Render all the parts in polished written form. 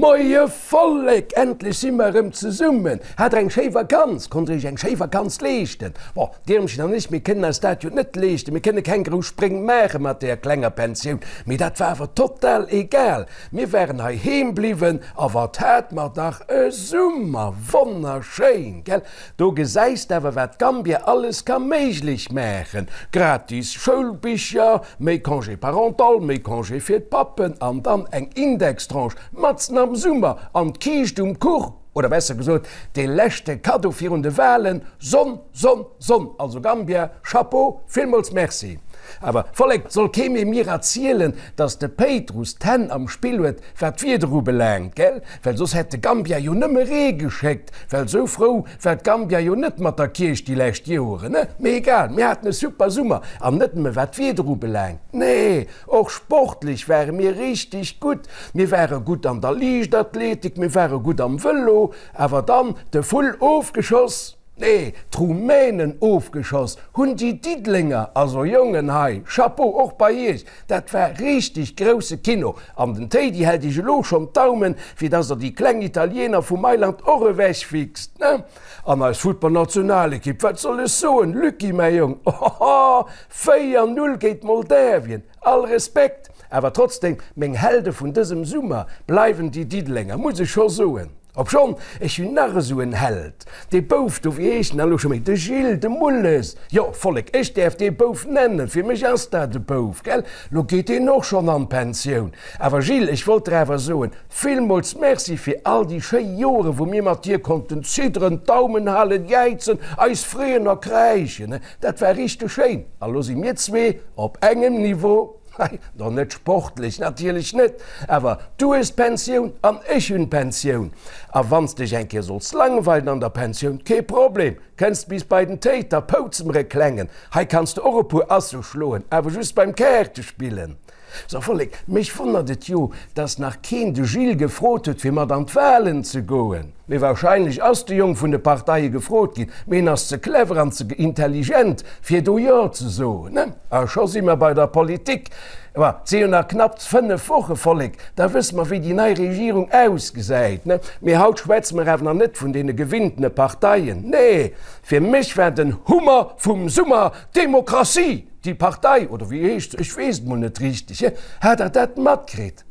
Moie Vollek, endlech si mer erëm zesummen. Hat der eng schéi Vakanz? Konnt der iech eng schéi Vakanz leeschten? Bon, d'Irmchen an ech, mir kënnen eis dat jo net leeschten, mir kënne keng grouss Spréng maache mat deeër klenger Pensioun, mee dat war awer total egal. Mir waren hei heem bliwwen a wat hat mer dach e Summer! Wonnerschéin, gell? Do gesäis de awer wat Gambia alles ka méiglech maachen, gratis Schoulbicher, méi Congé parental, méi Congé fir d'Pappen an dann eng Indextranche matzen am Summer an d'Kiischt um Kuch, oder besser gesot dee leschte Kaddo virun de Wahlen, Sonn, Sonn, Sonn! Also Gambia, Chapeau, villmools Merci! Awer Vollek, soll kee méi mir erzielen, dass de Péitruss d'Hänn am Spill huet, wat d'Wieder ubelaangt, gell? Well soss hätt de Gambia jo nëmme Ree geschéckt, well sou frou war d'Gambia jo net mat der Kierch déi lescht Joeren, ne? Mee egal, mir haten e super Summer, an net nëmme wat d'Wieder ubelaangt, nee, och sportlech ware mir richteg gutt. Mir ware gutt an der Liichtathletik, mir ware gutt am Vëlo, awer dann de Vull ofgeschoss. Nee, d'Rumänen ofgeschoss hunn déi Diddelenger, also Jongen hei, Chapeau och bei iech, dat war richteg grousse Kino an den Téidi hält iech elo schonn d'Daumen fir dass der déi kleng Italiener vu Mailand och ewech fixt, ne? An eis Futtballnationalekipp, wat soll ech soen, Lucky mäi Jong, ohoho, 4, 0 géint Moldawien, all Respekt, awer trotzdem meng Helde vun dësem Summer bleiwen déi Diddelenger, muss ech scho soen. Obschonn, ech hunn nach esou en Held, dee Bouf do, wéi heescht en elo scho méi, de Gilles, de Mulles, jo, Vollek, ech däerf dee Bouf nennen, fir mech ass dat e Bouf, gell, lo geet deen och schonn an d'Pensioun. Awer Gilles, ech wollt der awer soen, villmools Merci fir all déi schéi Joren, wou mir mat dir konnten zidderen, d'Daumen halen, jäizen, eis freeën a kräischen, dat war richteg schéin. A lo si mir zwee op engem Niveau. Hei, no net sportlech natierlech net, awer du hues d'Pensioun an ech hunn d'Pensioun. A wann s dech eng Kéier solls langweilen an der Pensioun, kee Problem, kënns bis bei den Téi, da poutze mer e klengen. Hei kanns de och e puer Asse schloen, awer just beim Kaartespillen. So Vollek, mech wonnert et jo, dass nach keen de Gilles gefrot huet fir mat an d'Wahlen ze goen. Mee wahrscheinlech ass de Jong vun de Parteie gefrot ginn, mee en ass ze clever an ze intelligent fir do Jo ze soen. A scho si mer bei der Politik. Ma et si jo nach knapp 5 Woche, Vollek, da wësse mer wéi déi nei Regierung ausgesäit. Mee haut schwätze mer awer nach net vun deene gewinntene Parteien. Nee, fir mech war den Hummer vum Summer d'Demokratie, déi Partei, oder wéi heescht se, ech weess et mol net richteg. Hat der dat matkritt?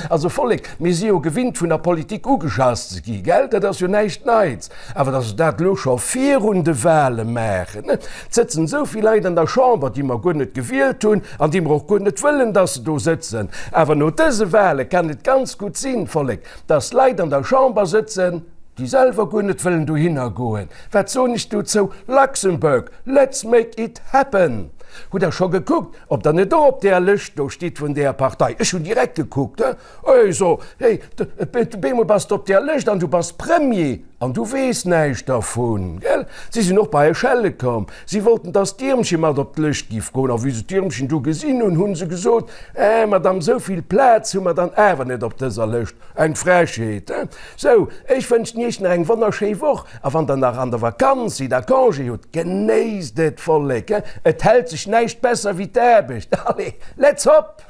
Also Vollek, mir si jo gewinnt vun der Politik ugeschass ze gi, gell, dat ass jo näischt Neits. Awer datt se dat elo scho virun de Wahle maachen, et sëtzen esou vill Leit an der Chamber, déi mer guer net gewielt hunn an déi mer och guer net wëllen, datt se do sëtzen. Awer no dëse Wahle kann et ganz gutt sinn, Vollek, datt Leit an der Chamber sëtzen, déi selwer guer net wëllen dohinner goen. Wat soen ech dozou? Luxembourg, let's make it happen! Hutt Der scho gekuckt, Ob der net och op deer Lëscht do stitt vun deer Partei? Ech hunn direkt gekuckt, he? Ech so, hey, bemol bass de op deer Lëscht an du bass Premier an du weess näischt dervun, gell? Si sinn och bei Echelle komm. Si wollten, dass d'Iermche mat op d'Lëscht giff goen. A wéi se d'Iermchen du gesinn hunn, hu se gesot, Eh, Madame, esou vill Plaz hu mer dann awer net op dëser Lëscht. Eng Frechheet, he? Sou, ech wënschen iech nach eng wonnerschéi Woch a wann der nach an der Vakanz sidd a Congé hutt, genéisst et, Vollek, he? Et hält sech näischt besser wéi d'Aarbecht. Allez, let's hop!